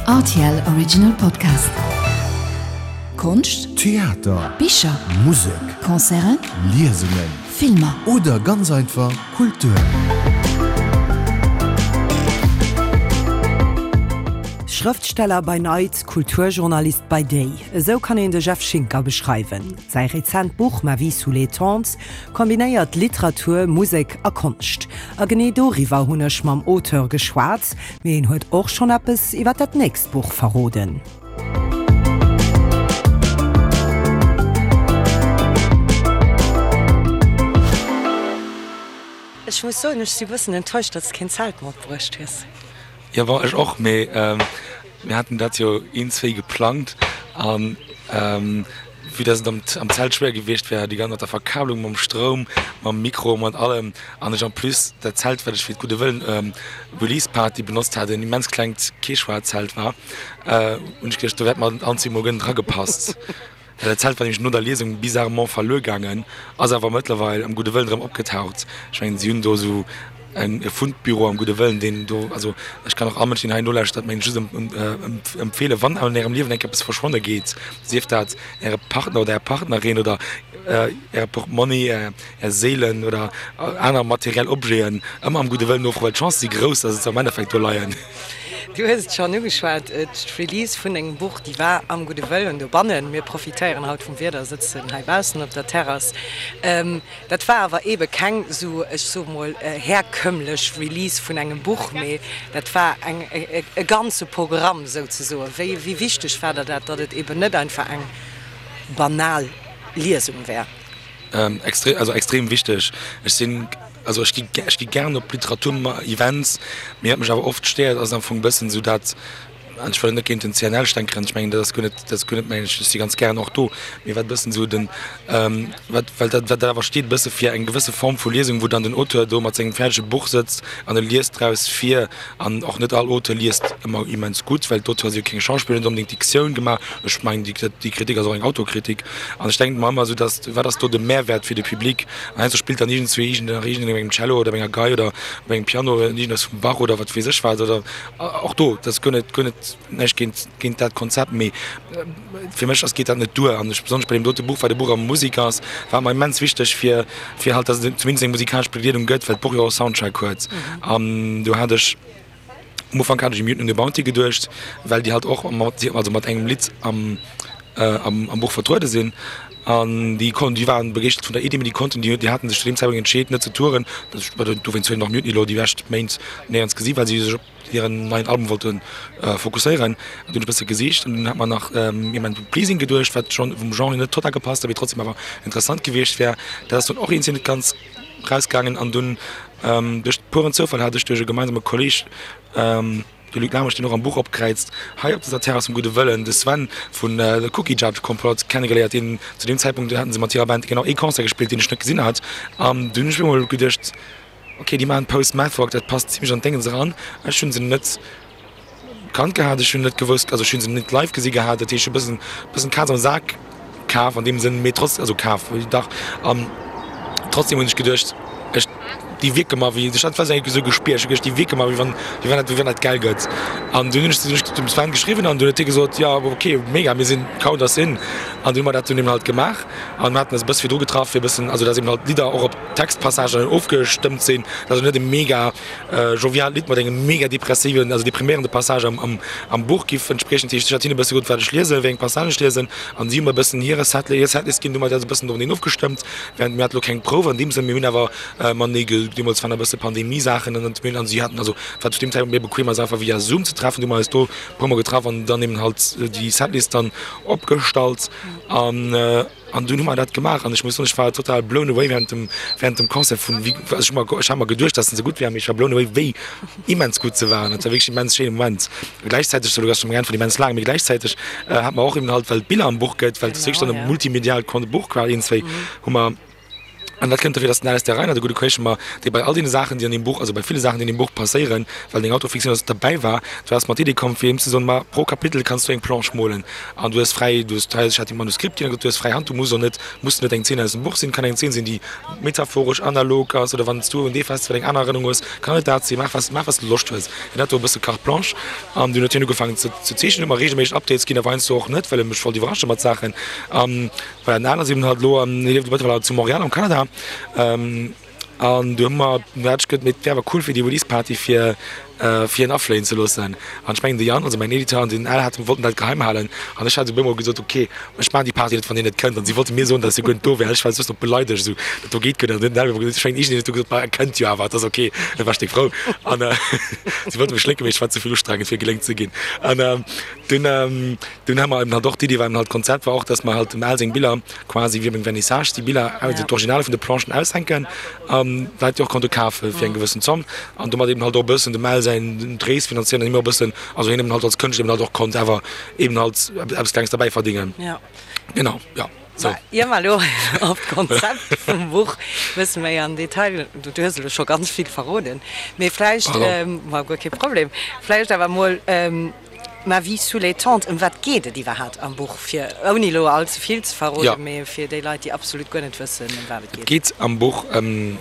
Rtl Original Podcast. Konscht, Theater, Bicher, Musek, Concerten, Liesungen Filmer. Oder ganz einfach Kultur. Schrëftsteller by night, Kulturjournalist by day, esou kann een de Jeff Schinker beschreiwen. Säi rezent Buch Ma vie sous les tentes kombinéiert Literatur, Musek a Konscht. A genee doriwwer hunn ech mam Auteur geschwat, mee en huet och schonn eppes iwwer dat nächst Buch verroden. Ech muss soen, ech si bëssen enttäuscht, datt s keen Zelt matbruecht hues. Jo, bon, ech och, mee mir haten dat jo een, zwéi geplangt an vue dass et am Zelt schwéier gewiescht wär, déi ganz mat der Verkabelung, mam Stroum, mam Mikro, mat allem an ech en plus dat Zelt, wat ech fir d'Gudde Wëllen Release Party benotzt hat, en immens klengt Quechua-Zelt war, hunn ech geduecht, do wäert mer anzwee mol guer net dragepasst. Dat Zelt war nämlech no der Liesung bizarrement verluer gaangen, ass awer mëttlerweil am Gudde Wëllen erëm opgetaucht. Ech mengen, si hunn do esou e Fundbüro am Gudde Wëllen, deen do, also ech kann och all Mënsch, deen hei nolauschtert, mengen ech just empfeelen, wann an ärem Liewen eng Kéier eppes verschwonne geet, sief dat äre Partner oder är Partnerin oder äre Portmonni, är Séilen oder aner materiell Objeten, ëmmer am Gudde Wëllen nofroen, well d'Chancë si grouss, dass et se am Endeffekt do leien. Du hues et schonn ugeschwat, d'Release vun dengem Buch, déi war am Gudde Wëllen dobannen. Mir profitéieren haut vum Wieder, sëtzen hei baussen op der Terrass. Dat war awer eebe keng esou, ech soe mol, herkömmlech Release vun engem Buch, mee dat war eng, e ganze Programm souzesoen. Wéi, wéi wichteg war der dat, datt et eeben net einfach eng banal Liesung wär? Extrem, also extrem wichteg. Ech sinn, also ech gi, ech gi gären op Literatur-Events, mee wat mech awer oft stéiert, ass am Fong e bëssen esou dat, an ech wëll net géint den CNL stänkeren, ech mengen dat ass guer net, dat ass guer net mäin, ech si ganz gären och do, mee wat e bëssen esou den, wat, well dat, wat dat awer steet e bësse fir eng gewësse Form vu Liesung, wou dann den Auteur do mat sengem fäerdege Buch sëtzt an e liest draus vir. An och net all Auteur liest ëmmer immens gutt, well d'Auteuren si jo keng Schauspiller, hunn net onbedéngt d'Diktioun gemaach. Ech mengen, déi Kritik ass och eng Autokritik. An ech denken mer ëmmer esou, dass, wat ass do de Mehrwert fir de Public? An heiansdo spillt dann iergendzwee iergend nach iergendeen op engem Cello oder op enger Gei oder op engem Piano iergendeppes vum Bach oder wat weess ech wat. Oder och do, dat ass guer net, guer net näischt géint, géint dat Konzept, mee fir mech ass, geet dat net duer. An ech, besonnesch bei deem dote Buch, wat e Buch a Musek ass, war et mer immens wichteg, fir, fir halt, dass et zumindest eng musikalesch Begleedung gëtt, well d'Buch jo och e Soundtrack huet. An do hat ech, am Ufank hat ech u Mutiny on the Bounty geduecht, well déi halt och mat, also mat engem Lidd am, am Buch vertruede sinn. An déi kon, déi waren begeeschtert vun der Iddi, mee déi konnten, déi, déi haten sech zu deem Zäitpunkt entscheet net ze touren. Dowéinst hunn och Mutiny elo déi lescht Méint néierens gesi, well si sech op hiren neien Album wollte fokusséieren. An dunn hunn ech e bësse gesicht an dunn hat mer nach Human Pleasing geduecht, wat schonn vum Genre net total gepasst huet, mee trotzdem awer interessant gewiescht wär. Dat ass dunn och iergendwéi net ganz rausgaangen an dunn duerch puren Zoufall hat ech duerch e gemeinsame Kolleeg, de Luc Lamesch, deen och am Buch opkräizt, hei op dëser Terrass vum Gudde Wëllen, de Sven vun The Cookie Jar Complot kennegeléiert, deen zu deem Zäitpunkt, do haten se mat hirer Band genau ee Concert gespillt, deen ech net gesinn hat. An dunn hunn ech mir emol geduecht, Ok, déi maachen Post-Math-Rock, dat passt zimlech an d'Déngens eran. Ech hunn se net kannt gehat, ech hunn net gewousst, also ech hunn se net live gesi gehat, dat heescht ech hu bëssen, bëssen d'Kaz am Sak kaf an deem Sënn, mee trotz, also kaf, dach, an trotzdem hunn ech geduecht, ech, déi wierke mer wéi, ech hat dat esou gespiert, ech hu geduecht, déi wierke mer wéi wann, wéi wann dat, wéi wann dat gäil gëtt. An dunn hunn ech, hunn ech dem Sven geschriwwen an dunn huet hie gesot, jo ok, mega, mir sinn count us in. An dunn hu mer dat dunn eben halt gemaach an mir haten eis e bësse virdru getraff fir e bëssen, also dass eben halt d'Lidder och op Textpassagen ofgestëmmt sinn. Dat ass net e mega joviaalt Lidd mat engem mega depressiven, also depriméierende Passage am am Buch giff entspriechen. Dat heescht, ech hat hinne e bësse gesot, wat ech liesen, wéi eng Passagen ech liesen, an si hu mer e bëssen hire Set, hir Setlist ginn. Du hu mer dat e bëssen doreneen ofgestëmmt. Während mir hate lo keng Prouf an deem Sënn, mir hunn awer matenee ge, deemools waren e bësse Pandemie-Saachen an mir hunn, an si haten, also wat zu deem Zäitpunkt méi bequem ass, einfach via Zoom ze treffen. Du hu mer eis do e puermol getraff an dann eben halt déi Setlist dann opgestallt an. An dunn hu mer dat gemaach an ech muss soen, ech war total blown away während dem, während dem Concert vun wéi, also ech hu mer, ech hat mer geduecht, dass se gutt wären, mee ech war blown away wéi immens gutt se waren. Dat war wierklech immens schéine Moment. Gläichzäiteg, sou, elo ass scho meng Äntwert immens laang, mee gläichzäiteg hat mer och eben halt, well et Biller am Buch gëtt, well et ass wierklech dann e multimediaalt Buch quasi, iergendzwéi hu mer. An dat kënnt dofir, dass den Alastair Reiner, de gudde Kolleg vu mer, dee bei all deene Saachen, déi an deem Buch, also bei ville Saachen, déi an deem Buch passéieren, well et eng Autofiktioun ass, derbäi war, du ass mat d'Iddi komm, fir him ze soen, Ma pro Kapitel kanns du eng Planche molen an du hues fräi, du hues, ech hat him d'Manuskript ginn, du hues fräi Hand, du muss och net, muss net eng Zeen aus dem Buch sinn, kann eng Zeen sinn, déi metaphoresch, analog ass oder wann s du un dee Festival eng aner Erënnerung hues, kann et dat sinn, maach was, maach was du Loscht hues. Hien hat do e bësse Carte blanche an dunn huet hien ugefaangen ze zeechnen, huet mer reegelméisseg Updates ginn, awer heiansdo och net, well e mech wollt iwwerrasche mat Saachen. Voilà, den Alan ass eben halt elo an, hie lieft mëttlerweil zu Montréal am Kanada. An du hu mer, du hat ech gëtt, mee et wär awer cool fir déi Release Party fir fir en afléien ze loossen. An ech mengen de Yann, also mäin Editeur, an den Al haten, wollten dat geheim halen. An ech hat op eemol gesot, ok, ech maachen déi Party net, wann dir net kënnt. An si wollte mir soen, datt si guer net do wär. Ech war just nach beleidegt, esou, dat do geet guer net. An den Al huet emol gesot, ech mengen iergendeen huet du gesot, ma e kënnt jo awer, et ass ok. Da war ech déck frou. An si wollte mech lénken, mee ech war ze vill ustrengend fir gelénkt ze ginn. An dunn, Dunn hu mer eben halt och, d'Iddi war eben halt, d'Konzept war och, dass mer halt dem Al seng Biller quasi wéi op engem Vernissage, déi Biller, also d'Originale vun de Planchen aushänken an d'Leit déi och konnte kafe fir eng gewëssen Zomm an domat eben halt och e bëssen dem Al säin d'Rees finanzéieren an him och e bëssen, also hien eben halt als Kënschtler eben halt och konnt awer eben halt eppes Klenges derbäi verdingen. Genau, jo. So. Ier mer elo op d'Konzept vum Buch e bësse méi am Detail, du hues elo scho ganz vill verroden, mee vläicht, ma guer kee Problem, vläicht awer emol Ma vie sous les tentes, ëm wat geet et iwwerhaapt am Buch, fir ouni elo all ze vill ze verroden, mee fir déi Leit, déi absolut guer net wëssen, ëm wat et geet? Et geet am Buch ëm,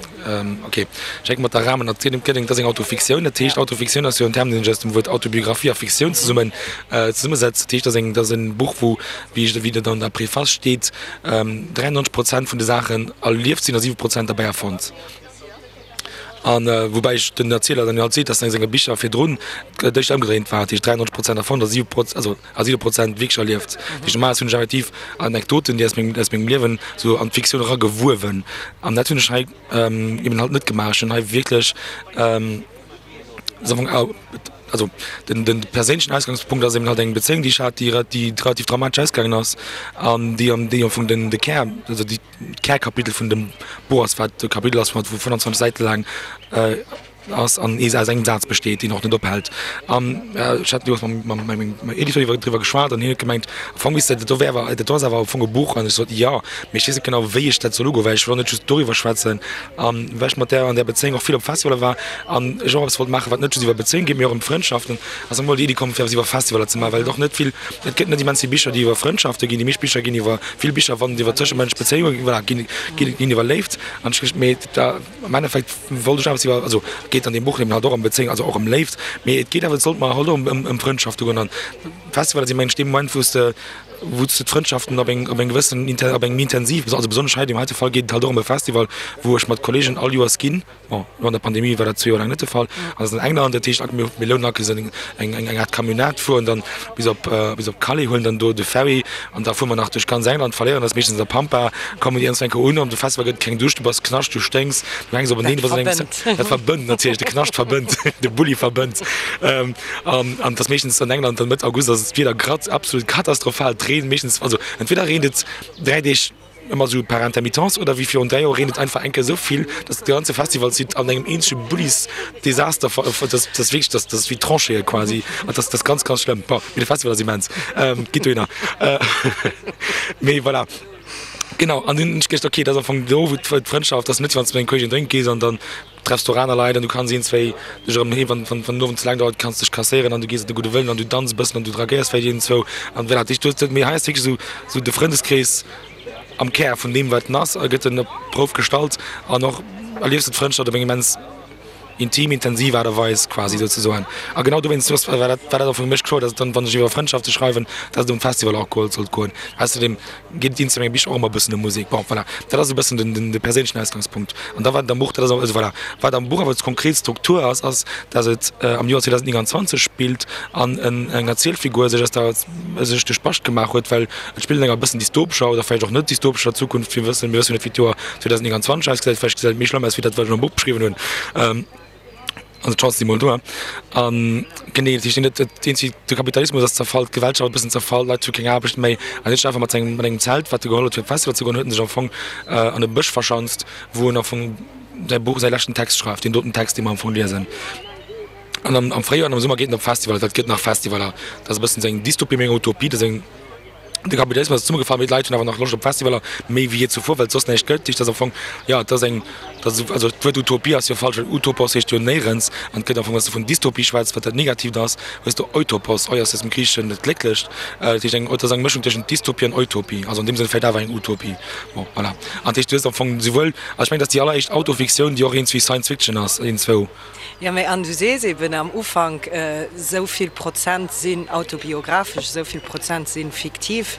ok, ech hänke mat der Rahmen-Erzielung, et ass eng Autofiktioun, dat heescht, Autofiktioun ass jo en Term, deen sech aus dem Wuert Autobiographie a Fiktioun zesummen zesummesetzt. Dat heescht, et ass eng, et ass e Buch, wou, wéi ech, wéi et an der Preface steet, 93 Prozent vun de Saachen erlieft sinn a 7 Prozent derbäi erfonnt. An woubäi ech den Erzieler dann jo halt seet, dass a senge Bicher virdrun et éischter ëmgedréint war, dat heescht 93 Prozent erfonnt a 7 Proz also a 7 Prozent wierklech erlieft. Dat heescht normalerweis hunn ech effektiv Anekdoten, déi aus mengem aus mengem Liewen esou an d'Fiktioun eragewuewen. An dat hunn ech hei eben halt net gemaach. Ech hunn hei wierklech also den den perséinlechen Ausgangspunkt ass eben halt eng Bezéiung, déi ech hat, déi déi relativ dramatesch ausgaangen ass an déi an déi am Fong den de Kär also déi D'Kärkapitel vun dem Buch ass, wat e Kapitel ass, wat wou 25 Säite laang ass an ee aus engem Saz besteet, deen och net ophält. An ech hat deemools mam mam mengem Editeur iwwer driwwer geschwat an hien huet gemengt, am Fong misst dat do wär awer dat do ass awer am Fong e Buch. An ech sot, jo, mee ech weess net genau, wéi ech dat soll ugoen, well ech wëll och net just doriwwer schwätzen. An well ech mat där an där Bezéiung och vill op Festivaler war an ech och eppes wollt maachen, wat net just iwwer Bezéiung geet, mee och ëm Frëndschaften, ass emol déi Iddi komm, fir eppes iwwer Festivaler ze maachen, well et och net vill, et gëtt net immens vill Bicher, déi iwwer Frëndschafte ginn. Déi meescht Bicher ginn iwwer Vill Bicher wann et iwwer tëschemënschlech Bezéiunge geet, voilà, ginn, ginn, ginn iwwer Léift. An ech, mee da am Endeffekt wollt ech awer iwwer, also et geet an deem Buch eben halt och ëm Bezéiung, also och ëm Léift, mee et geet awer, et sollt mer halt och ëm, ëm Frëndschafte goen. An Festivaler si mengen ech dee Moment, wou s de, wou s de d'Frëndschaften op eng, op eng gewëssen, op eng méi intensiv, also besonnesch hei, deem heite Fall geet et halt och ëm e Festival, wou ech mat Kollegen all Joers ginn. Bon, lo an der Pandemie war dat zwee Joer laang net de Fall. An ass an England, dat heescht, mir mir lounen aktuell eng eng eng Aart Camionnette, fueren dann bis op bis op Calais, huelen dann do de Ferry an da fuere mer nach duerch ganz England, verléieren eis meeschtens an der Pampa, kommen iergendwann eng Kéier un. An de Festival gëtt et keng Dusch, du bass Knascht, du sténks, du hänks openeen, du bass an engem Dat verbënnt natierlech, de Knascht verbënnt, de Bulli verbënnt. An an et ass meeschtens an England dann Mëtt August ass d'Wieder grad absolut katastrophal, et reent meeschtens, also entweder reent et 3 Deeg, Ëmmer esou par intermittence oder wéi virun 3 Joer reent et einfach eng Kéier esou vill, dass de ganze Festivalsite an engem eenzege Bullisdesaster ver, dass dass wierklech, dass dass wéi Tranchéeë quasi an dass dass ganz ganz schlëmm. Bon, mee de Festival ass immens, gitt dohinner. Mee voilà, genau an dunn hunn ech geduecht, okay, dat ass am Fong do wou d'Frëndschaft ass, net wann s de mat engem Kolleegen drénke gees an dann treffs du och aner Leit an du kanns een, zwéi dech erëm heem, wann wann den Owend ze laang dauert, kanns dech kasséieren an du gees op de gudde Wëllen an du danz e bëssen an du dragéiers vläicht een, zwou an voilà. Dat heescht, du hues, mee hei ass wierklech esou esou de Frëndeskrees am Kär vun deem wat en ass a gëtt en op d'Prouf gestallt an och erliefs du d'Frëndschaft op eng immens intim, intensiv Aart a Weis quasi souzesoen. A genau dowéinst war dat war dat och fir mech kloer, datt et dann, wann ech iwwer Frëndschafte schreiwen, datt et ëm d'Festivaler och goe sollt goen. Ausserdeem geet et ins menge Bicher och ëmmer e bëssen ëm Musek. Bon, voilà, dat ass e bëssen den, den, de perséinlechen Ausgangspunkt. An da wat am Buch, dat ass, also voilà, wat am Buch awer d'konkret Struktur ass, ass, datt et am Joer 2029 spillt an en, eng Erzielfigur sech aus der, sech de Spascht gemaach huet, well et spillt an enger e bëssen dystopescher oder vläicht och net dystopescher Zukunft. Mir wëssen, mir wëssen jo net, wéi d'Joer 2029 ausgesäit, vläicht gesäit et méi schlëmm aus wéi dat, wat ech am Buch beschriwwen hunn. Also d'Chance si mol do. An genee, dat heescht net, dat eenzegt, de Kapitalismus ass zerfall, d'Gewellschaft e bëssen zerfall, d'Leit hu keng Aarbecht méi. An hien huet sech einfach mat sengem, mat engem Zelt, wat e geholl huet fir op Festival ze goen, huet en sech am Fong an e Bësch verschanzt, wou en am Fong säi Buch, säi leschten Text schreift, deen doten Text, dee mer am Fong liesen. An am, am Fréijoer an am Summer geet en op Festivaler, dat gëtt nach Festivaler. Dat ass e bëssen seng Dystopie, meng Utopie, dat ass eng. De Kapitalismus ass zesummegefall, mee d'Leit hunn awer nach Loscht op Festivaler, méi wéi jee zuvor, well et soss näischt gëtt. Dat heescht, dat ass am Fong, jo, et ass eng, dat ass, also d'Wuert Utopie ass jo falsch, well Utopos heescht jo néierens an et gëtt am Fong, wann s de vun Dystopie schwätz, wat dat Negatiivt ass, hues de Eutopos, eu ass aus dem Griicheschen dat Glécklecht, dat heescht eng, et ass eng Mëschung tëschent Dystopie an Utopie, also an deem Sënn vläicht awer eng Utopie. Bon, voilà. An dat heescht, du hues am Fong souwuel, also ech mengen, dat ass déi alleréischt Autofiktioun, déi och iergendswéi Science Fiction ass, iergendzwou. Jo, mee an du sees eben am Ufank, esou vill Prozent sinn autobiographesch, esou vill Prozent si fiktiv.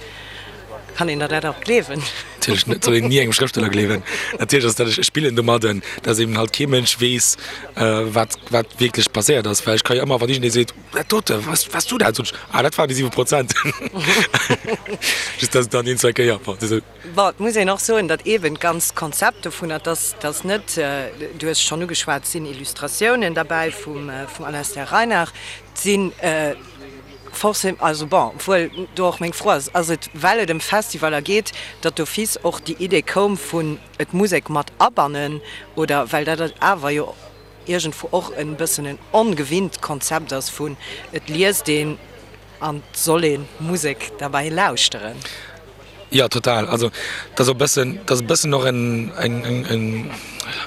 Kann een der dat och gleewen? Natierlech net, soll een ni engem Schrëftsteller gleewen. Natierlech ass dat, ech spillen domadden, datt eben halt kee Mënsch weess, wat wat wierklech passéiert ass. Well ech ka jo ëmmer, wann iergendee seet, dat dote, waars waars du dat? Soen ech, ah dat waren déi 7 Prozent. Just datt et dann een, zwei Kéier, bon, désolé. Bon, et muss een och soen, datt eeben d'ganzt Konzept dovunner, dass dass net, du hues et schonn ugeschwat, et sinn Illustratiounen derbäi vum vum Alastair Reinach, et si forcément, also bon, obwuel do och meng Fro ass, ass et, well et ëm Festivaler geet, datt d'office och déi Idee koum vun et Musek mat abannen, oder well dat awer jo iergendwou och e bëssen en ongewinnt Konzept ass vun et liest een an et soll ee Musek derbäi lauschteren. Jo, total. Also dat ass och e bëssen, dat ass e bëssen och en, eng, eng, en,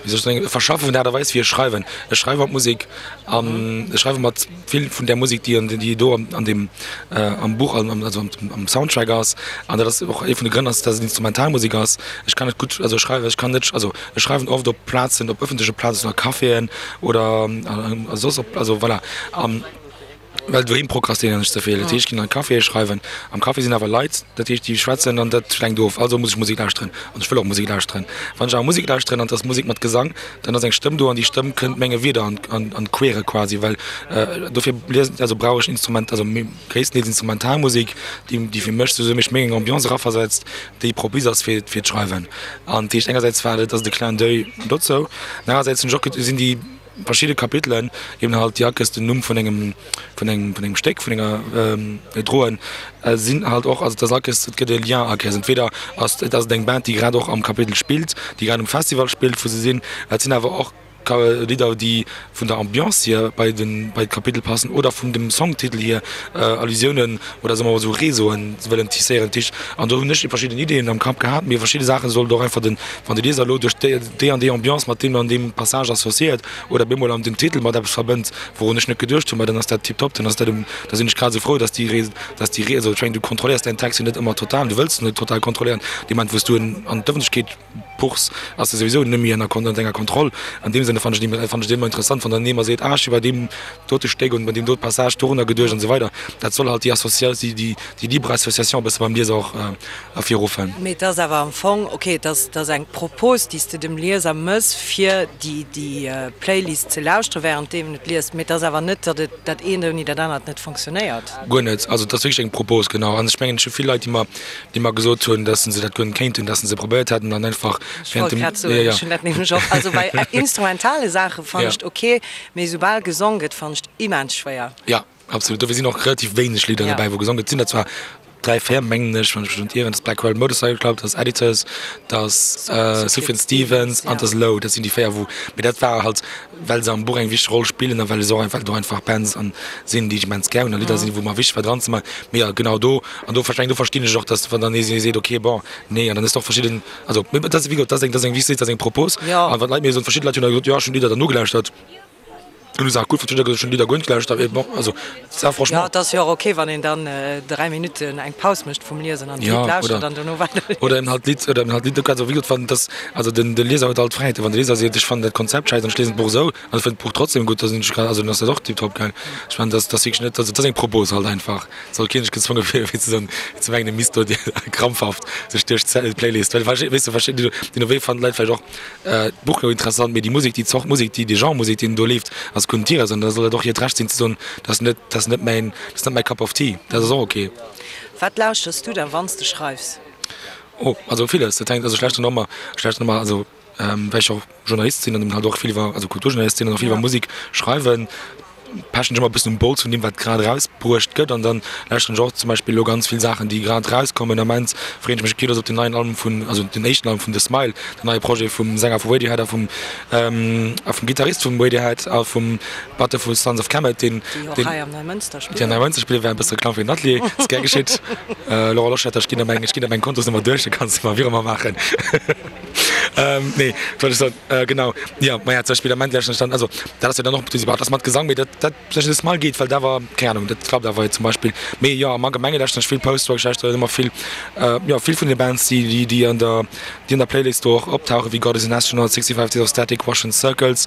wéi soll ech soen, e Verschaffe vun der Aart a Weis wéi ech schreiwen. Ech schreiwe mat Musek an ech schreiwe mat vill vun där Musek, déi an, déi do an deem, am Buch, an, also am Soundtrack ass. An dat ass och ee vun de Grënn ass, dass et Instrumentalmusek ass. Ech kann net gutt, also ech schreiwe, ech kann net, also ech schreiwen oft op Plazen, op ëffentleche Plazen, a Caféen oder a soss op, also voilà. An. Well doheem prokrastinéieren ech ze vill. Dat heescht, ech ginn an d'Caféë schreiwen. Am Café sinn awer Leit, dat heescht, déi schwätzen an dat lenkt of. Also muss ech Musek lauschteren an ech wëll och Musek lauschteren. Wann ech awer Musek lauschteren an et ass Musek mat Gesang, dann ass eng Stëmm do an déi Stëmm kënnt menge Wierder an, an, an d'Quere quasi. Well dofir liesen, also brauch ech Instrument, also gréisstendeels Instrumentalmusek, déi, déi fir mech souwisou mech méi eng Ambiance eraversetzt, déi propice ass fir, fir d'Schreiwen. An dat heescht, engersäits war et, ass et e Clin d'oeil dozou, an anerersäits hunn ech och, sinn déi, Verschidde Kapitelen eben halt déi Akes den Numm vun engem vun engem vun engem Stéck vun enger droen sinn halt och also dass Akes et gëtt e Lien Akes entweder ass et ass et eng Band déi grad och am Kapitel spillt déi grad um Festival spillt wou se sinn et sinn awer och Lidder déi vun der Ambiance hier bei den bei d'Kapitel passen oder vun dem Songtitel hier Allusiounen oder soe mer mol esou Réseauen wëllen tisséieren Tisch an do hunn ech verschidden Ideeën am Kapp gehat mee verschidde Saache sollt och einfach den wann de Lieser elo duerch déi déi an déi Ambiance mat deem an deem Passage associéiert oder bemol an den Titel mat eppes verbënnt, wourun ech net geduecht hunn, ma dann ass dat tiptop, dann ass dat um, da sinn ech grad esou frou, dass déi Ré, dass déi Ré, also ech mengen, du kontrolléiers däin Text jo net ëmmer total, du wëlls en net total kontrolléieren. Dee Moment, wou s du en an d'Ëffentlechkeet puchs, ass e souwisou net méi ënner Kon, ënner denger Kontroll. An deem Sënne fannen ech et, fannen ech et ëmmer interessant, wann dann ee mer seet, ah, ech hu bei deem dote Stéck und bei deem dote Passage dorunner geduecht an esou weider. Dat soll halt déi Associa, déi, déi, déi libre Association e bësse beim Lieser och ervirruffen. Mee et ass awer am Fong, ok, et ass, et ass eng Propos, déi s de dem Lieser mëss, fir déi, déi Playlist ze lauschtere während deem en et liest. Mee et ass awer net, datt et dat eent ouni dat anert net fonctionnéiert. Guer net. Also et ass wierklech eng Propos, genau. An ech mengen, ech hu vill Leit, déi mer, déi mer gesot hunn, datt se dat guer net kéinten, datt se se probéiert hätten an einfach Ech wollt grad soen, ech hunn dat nämlech och. Also bei instrumentale Saache fannen ech et ok, mee soubal gesong gëtt, fannen ech et immens schwéier. Jo. Absolut, dofir sinn och relativ wéineg Lidder dobäi wou gesongen gëtt. Et sinn der zwar 3, 4 mengen ech, wann ech mech net ieren, dat ass Blackwell Motorcycle Club, dat ass Editors, dat ass Sufjan Stevens an dat ass Low. Dat sinn déi 4 wou, mee dat war halt well se am Buch eng wichteg Roll spillen a well se och einfach do einfach Bands an sinn déi ech immens gär hunn a Lidder sinn wou mer wichteg war dran ze maachen. Mee jo genau do an do versteng do verstinn ech och, datt wann dann ee seet ok bon nee an dann hues de och verschidden, also mee dat ass wéi gesot dat ass eng dat ass eng wéi s de sees dat ass eng Propos an wann d'Leit mir soen, verschidde Leit hunn da gesot jo ech hunn d'Lidder dann nogelauschtert. Hun Saach gutt verstinn, schon Lidder guer net gelauschtert, mee bon, also ça franchement. Jo, et ass jo och ok, wann een dann 3 Minutten eng Paus mécht vum Liesen an d'Lidd lauschtert an dono weider liest. Oder eben halt d'Lidd, oder eben halt d'Lidd, also wéi gesot, wann dass, also den de Lieser huet all d'Fräiheeten, wann de Lieser seet, ech fannen dat Konzept schäiss an ech liesen d'Buch esou an ech fënn d'Buch trotzdem gutt, da sinn ech grad, also dann ass dat och tiptop, gell. Ech mengen, dass dass wierklech net, also et ass eng Propos halt einfach, et soll keen sech gezwonge fillen, fir ze soen, fir ze mengen, e misst do krampfhaft sech duerch d'Playlist, well weess de, verschidden, déi no wéi fannen d'Leit vläicht och D'Buch gouf interessant, mee déi Musek, déi Zort Musek, déi, dee Genre Musek, deen do leeft, ass guer net hires. An da soll et och hiert Recht sinn ze soen, dat ass net, dat ass net mäin, dat ass net mäi Cup of Tea. Dat ass och ok. Wat lauschters du da wann s de schreifs? Oh, also villes. Dat hänkt, also ech lauschteren ëmmer, ech lauschteren ëmmer, also well ech och Journalist sinn an eben halt och vill iwwer, also Kulturjournalist sinn an och vill iwwer Musek schreiwen. Pechen ech ëmmer e bëssen um Bols vun deem, wat grad erausbruecht gëtt. An dann lauschteren ech och zum Beispill elo ganz vill Saachen, déi grad erauskommen. Am Ament freeën ech mech ok, dass op den neien Album vun, also den éischten Album vun The Smile, den neie Projet vum Sänger vu Radiohead a vum, a vum Gittarist vum Radiohead a vum Batteur vu Sons of Kemet, deen, Déi och hei am Neimënster spillen. Déi am Neimënster spillen, war e bësse Reklamm fir den Atelier, ass gär geschitt. Laurent Loschetter, ech ginn der meng, ech ginn der meng Kontosnummer duerch, da kanns de mer Virement maachen. Nee, wat wollt ech soen? Genau, jo, maja, zum Beispill am Ament lauschteren ech dann, also dat ass jo dann och, dat ass mat Gesang, mee dat, dat zum Beispill The Smile geet, well dat war, keng Ahnung, dat klappt awer zum Beispill. Mee jo, am Allgemenge lauschteren ech vill Post-Rock, ech lauschteren ëmmer vill, jo, vill vun de Bands, déi, déi, déi an der, déi an der Playlist do och optauchen, wéi God Is An Astronaut, 65 Days of Static, Russian Circles,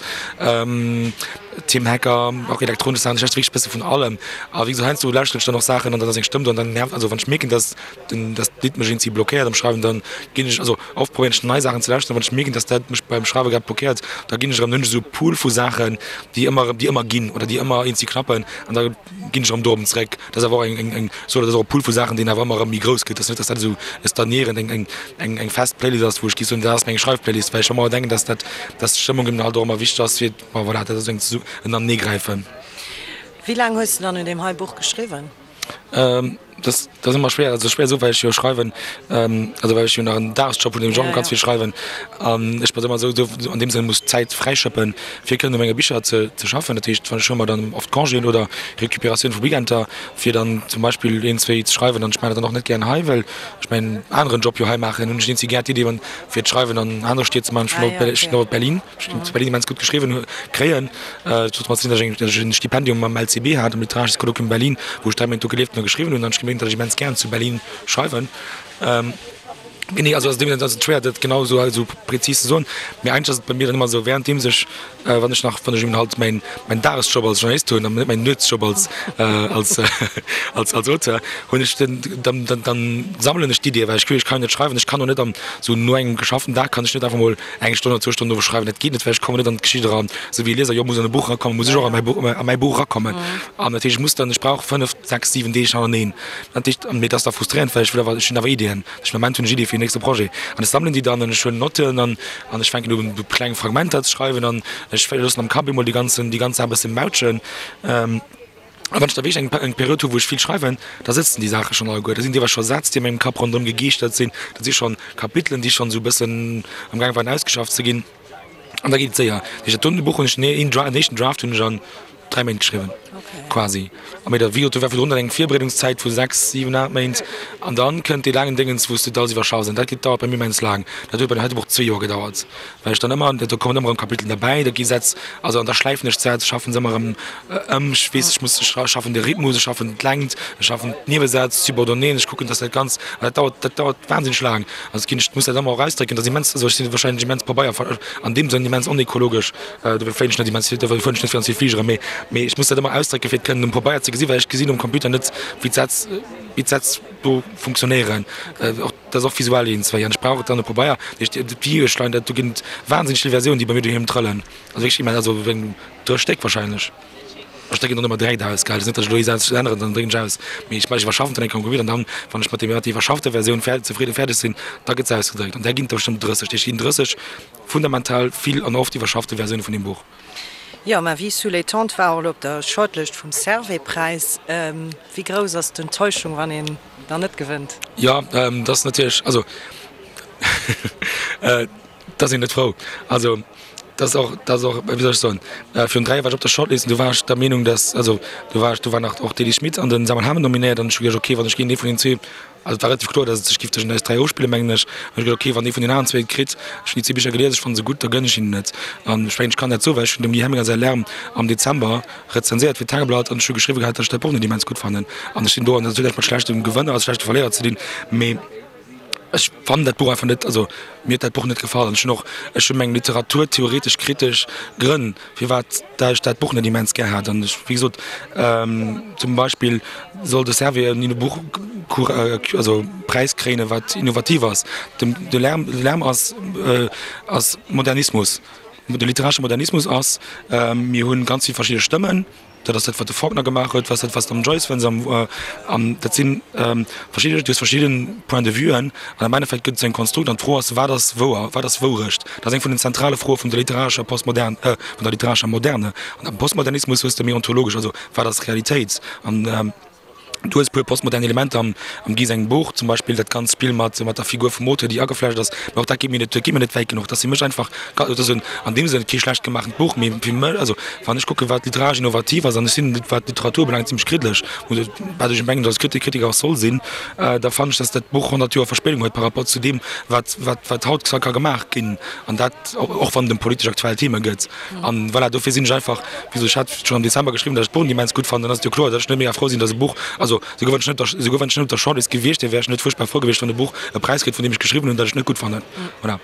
Tim Hecker, och elektronesch Saachen, ech lauschteren wierklech e bësse vun allem. A wéi gesot, heiansdo lauschteren ech dann och Saachen an dann ass eng Stëmm do an dann nervt, also wann ech mierken, dass den, dass d'Lidd mech iergendwéi blockéiert am Schreiwen, dann ginn ech, also oft probéieren ech nei Saachen ze lauschteren, wann ech mierken, dass dat mech beim Schreiwe grad blockéiert, da ginn ech erëm, dann hunn ech esou e Pool vu Saachen, déi ëmmer erëm, déi ëmmer ginn oder déi ëmmer iergendwéi klappen an da ginn ech erëm dorop zeréck. Dat ass awer och eng, eng, eng, sou, dat ass och e Pool vu Saachen, deen awer ëmmer erëm méi grouss gëtt. Dat ass net, dass dat esou e stagnéierend, eng, eng, eng, eng fest Playlist ass, wou ech géif soen, dat ass meng Schreifplaylist, well ech ëmmer denken, dass dat, dass d'Stëmmung eben halt och ëmmer wichteg ass fir, bon voilà, dat ass esou eng, en Aneneegräifen. Wéi laang hues de dann un deem hei Buch geschriwwen? Dat ass ëmmer schwéier, also schwéier esou, well ech jo schreiwen, also well ech jo nach en Dagesjob hunn, deem ech och ganz vill schreiwen an ech mer ëmmer esou an deem Sënn muss Zäit fräischëppen, fir kënnen u menge Bicher ze ze schaffen. Dat heescht, ech huele mer dann oft Congéen oder Recuperatioun vu Weekender, fir dann zum Beispill een, zwéi ze schreiwen an ech maachen dat dann och net gären hei, well ech mäin aneren Job jo hei maachen, hunn ech eenzi gär d'Idee fir d'Schreiwen an anere Stied ze maachen. Ech hunn och Berlin. Ech hunn zu Berlin immens gutt geschriwwen kréien. Et huet domat ze dinn, datt ech datt ech en Stipendium am LCB hat, am Literarisches Kolloquium Berlin, wou ech 3 Méint do gelieft hunn a geschriwwen hunn. An ech gemierkt, datt ech immens gären zu Berlin schreiwen. Genee, also ass et ass et schwéier, dat genau esou esou prezis ze soen. Mee eigentlech ass et bei mir dann ëmmer esou, wärenddeems ech, wann ech nach, wann ech eben halt mäin mäin Dagesjob als Journalist hunn an net mäin Nuetsjob als als als als Auteur, hunn ech den dann dann dann sammelen ech d'Iddien, well ech ech kann jo net schreiwen, ech kann och net am esou no engem geschafften Dag kann ech net einfach mol Eng Stonn oder zwou Stonnen dovu schreiwen, dat geet net, well ech kommen net an d'Geschicht eran. Esou wéi e Lieser jo muss an e Buch erakommen, muss ech och a mäi Buch, a mäi Buch erakommen. An dat heescht, ech muss dann, ech brauch 5, 6, 7 Deeg hannerteneen. Dat heescht, an mee dat ass da frustrierend, well ech wëll awer, ech hunn awer Iddien. Ech am Ament hunn ech Iddie fir den nächste Projet. An ech sammelen déi dann an ech huelen Notten an an ech fänken un, kleng Fragmenter ze schreiwen an ech loossen am Kapp emol déi ganzen, déi ganz Saach e bësse mautschen. A wann ech da wierklech eng eng Period hu wou ech vill schreiwen, da sëtzen déi Saache schonn alleguer. Da sinn deelweis scho Sätz, déi a mengem Kapp ronderëm gegeeschtert sinn. Dat si schonn Kapitelen, déi schonn esou e bëssen am gaang waren ausgeschafft ze ginn. An da geet et séier. Dat heescht, dat doten Buch hunn ech, een Dra-, en éischten Draft hunn ech an 3 Méint geschriwwen, quasi. A mee da, wéi gesot, do war virdrun dann eng Virbereedungszäit vu 6, 7, 8 Méint. An dann kënnt dee laangen Déngens, wou s de dat alles iwwerschaffs. An dat geet, dauert bei mir immens laang. Dat huet bei deem heite Buch zwee Joer gedauert. Well ech dann ëmmer, do kommen ëmmer erëm Kapitelen derbäi, da gi Sätz, also an da schläifen ech d'Sätz, schaffen se ëmmer erëm ëm, ech weess, ech muss, ech schaffen de Rhythmus, ech schaffen d'Längt, ech schaffen d'Niewesätz, d'Subordonnéeën, ech kucken, dass dat Ganzt, an dat dauert, dat dauert wahnsinneg laang. Also ginn ech, muss dat ëmmer och ausdrécken, dat ass immens, also ech sinn wahrscheinlech immens Pabeier, an deem Sënn immens onekologesch, dofir fléien ech net immens vill, dofir fueren ech net ganz vill Fligere, mee, mee ech muss dat ëmmer ausdrécken, fir et kënnen um Pabeier ze gesinn, well ech gesinn um Computer net, wéi d'Sätz, wéi d'Sätz do funktionéieren. Och. Dat ass och visuell eens wéi an ech brauch et dann op Pabeier. Dat heescht, d'Videoe schleien dat, do ginn et wahnsinneg vill Versiounen, déi bei mir doheem trëllen. Also wierklech immens, also wéi dräi Stéck wahrscheinlech. Ech drécken dann ëmmer direkt aus, gell. Et ass net, datt ech elo ee Saz änneren, dann drécken ech aus. Mee ech ech iwwerschaffen dann eng Kéier am Computer an dann, wann ech mat deem mat der iwwerschaffter Versioun fäer zefridden fäerdeg sinn, da gëtt se ausgedréckt. An där ginn et der bestëmmt 30. Dat heescht, et ginn 30 fundamental vill an oft iwwerschaffte Versioune vun deem Buch. Jo, Ma vie sous les tentes war och elo op der Shortlist vum Servais-Präis. Wéi grouss ass d'Enttäuschung, wann een dann net gewënnt? Jo, dat ass natierlech, also et ass een net frou. Also dat ass och, dat ass och, wéi soll ech soen, virun 3 Joer war ech op der Shortlist an do war ech der Meenung, datt, also do war ech, do war nach och d'Elise Schmit an den Samuel Hamen nominéiert an ech hu geduecht, okay, wann ech géint ee vun den zwee, Also et war relativ kloer, datt et sech giff tëschent eis 3 ofspillen, mengen ech. An ech gesot, ok, wann ee vun den aneren zwee et kritt, ech hunn déi zwee Bicher gelies, ech fanne se gutt, da gënn ech hinnen et. An ech mengen, ech kann dat soen, well ech hunn dem Guy Helminger säi Lärm am Dezember rezenséiert fir d'Tageblatt an ech hu geschriwwe gehat, datt ech dat Buch net immens gutt fannen. An ech sinn do, an dat huet näischt mat schlechtem Gewënner a schlechte Verléierer ze dinn, mee ech fannen dat Buch einfach net, also mir huet dat Buch net gefall. An ech hunn och, ech hu meng literaturtheoretesch kritesch Grënn, firwat dat ech dat Buch net immens gär hat. An ech, wéi gesot, zum Beispill soll de Servais en Buch also Präis kréien, wat innovativ ass. De de Lärm, de Lärm ass ass Modernismus. De literaresche Modernismus ass, mir hunn ganz vill verschidde Stëmmen. Dat ass dat, wat de Faulkner gemaach huet, wat dat, wat s de am Joyce fënns. An dat si verschidde, du hues verschidde Point de vuen an am Endeffekt gëtt et esou eng Konstrukt an d'Fro ass, wat ass wouer, wat ass Wourecht? Dat ass eng vun den zentrale Froe vun der literarescher Postmodern, vun der literarescher Moderne. An am Postmodernismus hues de méi ontologesch, also wat ass Realitéit? An Du hues e puer postmodern Elementer am am Guy sengem Buch, zum Beispill dat ganzt Spill mat mat der Figur vum Auteur, déi ageflecht ass, mä och dat geet mir net, dat geet mir net wäit genuch. Dat ass fir mech einfach, dat ass en an deem Sënn kee schlecht gemaachent Buch, mee fir mech, also wann ech kucken, wat literaresch innovativ ass, an ech sinn, wat d'Literatur ubelaangt, zimmlech kriddlech, wat ech mengen, datt Kritik Kritiker och soll sinn, da fannen ech, datt dat Buch 100 Joer Verspéidung huet par rapport zu deem, wat wat wat haut ka gemaach ginn, an dat och wann et ëm politesch aktuell Theme gëtt. An voilà, dofir sinn ech einfach, wéi gesot, ech hat schonn am Dezember geschriwwen, datt ech d'Buch immens gutt fannen, dann ass et jo kloer, datt ech net mega frou sinn, datt e Buch, also souguer wann ech net, souguer wann ech net op der Shortlist gewiescht wier, wär ech net fuerchtbar frou gewiescht, wann e Buch e Präis kritt, vun deem ech geschriwwen hunn, datt ech et net gutt fannen. Voilà.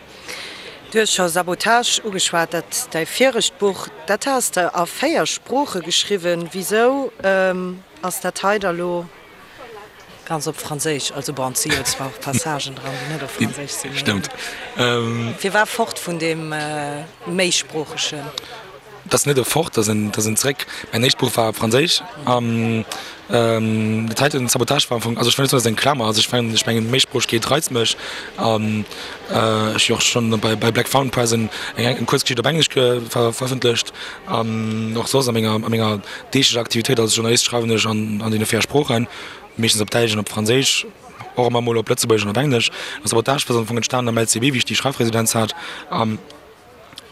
Du hues scho Sabotage ugeschwat, dat däi viregt Buch, dat has de a 4 Sprooche geschriwwen. Wisou ass dat hei da lo Ganz op Franséisch, also bon, et si jo zwar och Passagen dran, déi net op Franséisch sinn, mee. Stëmmt. Firwat fort vun deem Méisproochegen? Dat ass net e Fort, dat ass en, dat ass en Zréck. Mäin éischt Buch war op Franséisch an dat heiten, Sabotage, war am Fong, also ech wëll net soen, dat ass eng Klamer, also ech mengen, ech mengen Méisproochegkeet reizt mech an ech hu jo och schonn bei, bei Black Fountain Press eng, eng Kuerzgeschicht op Englesch verëffentlecht an och soss a menger, a menger deeglecher Aktivitéit als Journalist schreiwen ech an, an deene 4 Sproochen. meeschtens op Däitsch an op Franséisch, och ëmmer mol op Lëtzebuergesch an op Englesch. An Sabotage ass am Fong entstanen am LCB, wéi ech déi Schreifresidenz hat. An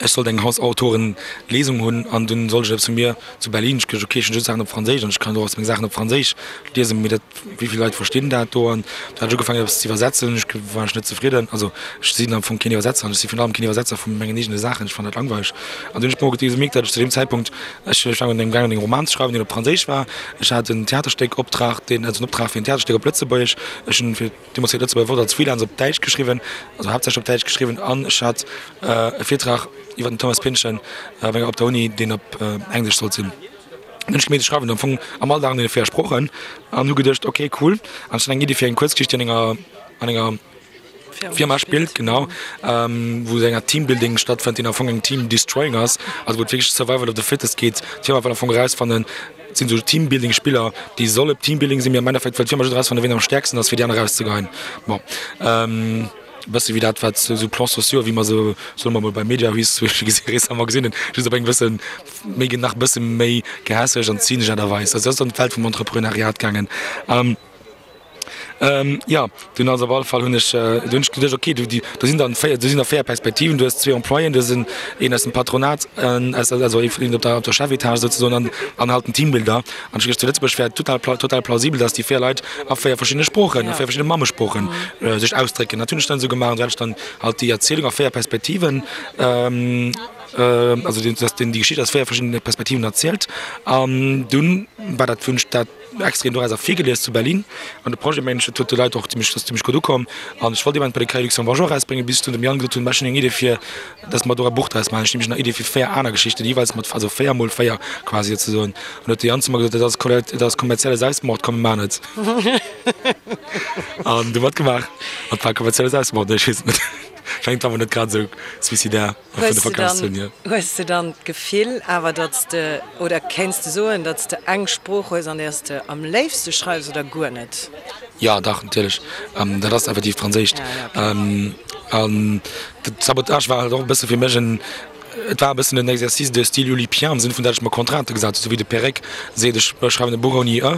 ech sollt eng Hausautorenlesung hunn an dunn sollt ech eppes vu mir zu Berlin. Ech geduecht, okay, ech hunn just Saachen op Franséisch an ech kann och meng Saachen op Franséisch liesen, mee dat, wéi vill Leit verstinn dat do? An du hat ech ugefaangen eppes ze iwwersetzen. Ech war ech net zefridden. Also ech sinn am Fong keen Iwwersetzer an ech si virun allem keen Iwwersetzer vu mengen eegene Saachen. Ech fannen dat langweileg. An dunn hunn ech mol gemierkt, datt ech zu deem Zäitpunkt, ech war an deem gaangen eng Roman ze schreiwen, deen op Franséisch war. Ech hat en Theaterstéck Optrag, deen, also en Optrag fir en Theaterstéck op Lëtzebuergesch. Ech hunn fir deemools fir d'Lëtzebuerger Wort als Freelance op Däitsch geschriwwen, also haaptsächlech op Däitsch geschriwwen an ech hat e Virtrag iwwer den Thomas Pynchon op der Uni, deen op Englesch sollt sinn. Dann hunn ech gemeet, ech schreiwen am Fong am Alldag an deene 4 Sproochen an hu geduecht, ok cool, an ech hunn eng Iddi fir eng Kuerzgeschicht, déi an enger, an enger Firma spillt, genau, wou esou eng Art Teambuilding stattfënnt, deen am Fong eng Team Destroying ass, also wou et wierklech Survival of the Fittest geet. D'Firma wëll am Fong erausfannen, et sinn esou Teambuilding-Spiller, déi solle Teambuilding sinn, mee am Endeffekt wëll d'Firma just erausfannen, wien am stäerksten ass, fir déi aner erauszegeheien. Bon. E bësse wéi dat, wat esou Plans sociaux, wéi mer se, soe mer mol, bei Mediahuis zum Beispill gesi récemment gesinn hunn, just op eng bësse méi, nach e bësse méi gehässeg an zynesch Aart a Weis. Also dat ass an d'Welt vum Entrepreneuriat gaangen. Jo, dunn also op alle Fall hunn ech, du hunn ech geduecht, okay, du, do sinn dann 4, do sinn der 4 Perspektiven, du hues zwee Employéen, du hues en, een aus dem Patronat, aus, also ee vun op der, op der Chefetage souzesoen an, an halt den Teambuilder. An ech hu geduecht, zu Lëtzebuerg wär et total, total plausibel, datt déi 4 Leit a 4 verschiddene Sproochen, a 4 verschiddene Mammesproochen sech ausdrécken. Dat hunn ech dann esou gemaach an esou hat ech dann halt déi Erzielung a 4 Perspektiven, also datt déi Geschicht aus 4 verschiddene Perspektiven erzielt. An dunn war dat, hunn ech dat extra een doraus ervirgelies zu Berlin an de Projet mengen ech dat huet de Leit och zimmlech ass zimmlech gutt ukomm an ech wollt eben bei de Cahiers Luxembourgeois erausbréngen bis ech dunn dem Yann gesot hunn ech hunn eng Idee fir dass mer do e Buch draus maachen ech hunn nämlech nach Idee fir 4 aner Geschichten déi jeeweils mat also 4 mol 4 quasi souzesoen an huet de Yann zu mer gesot dat ass dat ass kommerzielle Selbstmord komm mir maachen et an du matgemaach an et war kommerzielle Selbstmord nee ech weess et net schengt awer net grad esou suicidaire. Hues de dann, hues de dann d'Gefill awer, datt s de, oder kéints de soen, datt s de eng Sprooch hues, an där s de am léifste schreifs, oder guer net? Jo, dach, natierlech. Dat ass effektiv d'Franséischt. An de Sabotage war halt och e bësse fir mech en, et war e bëssen en Exercice de style oulipien, am Sënn vun, datt ech mer Contraintë gesat hunn, esou wéi de Perec seet, ech schreiwen e Buch ouni e.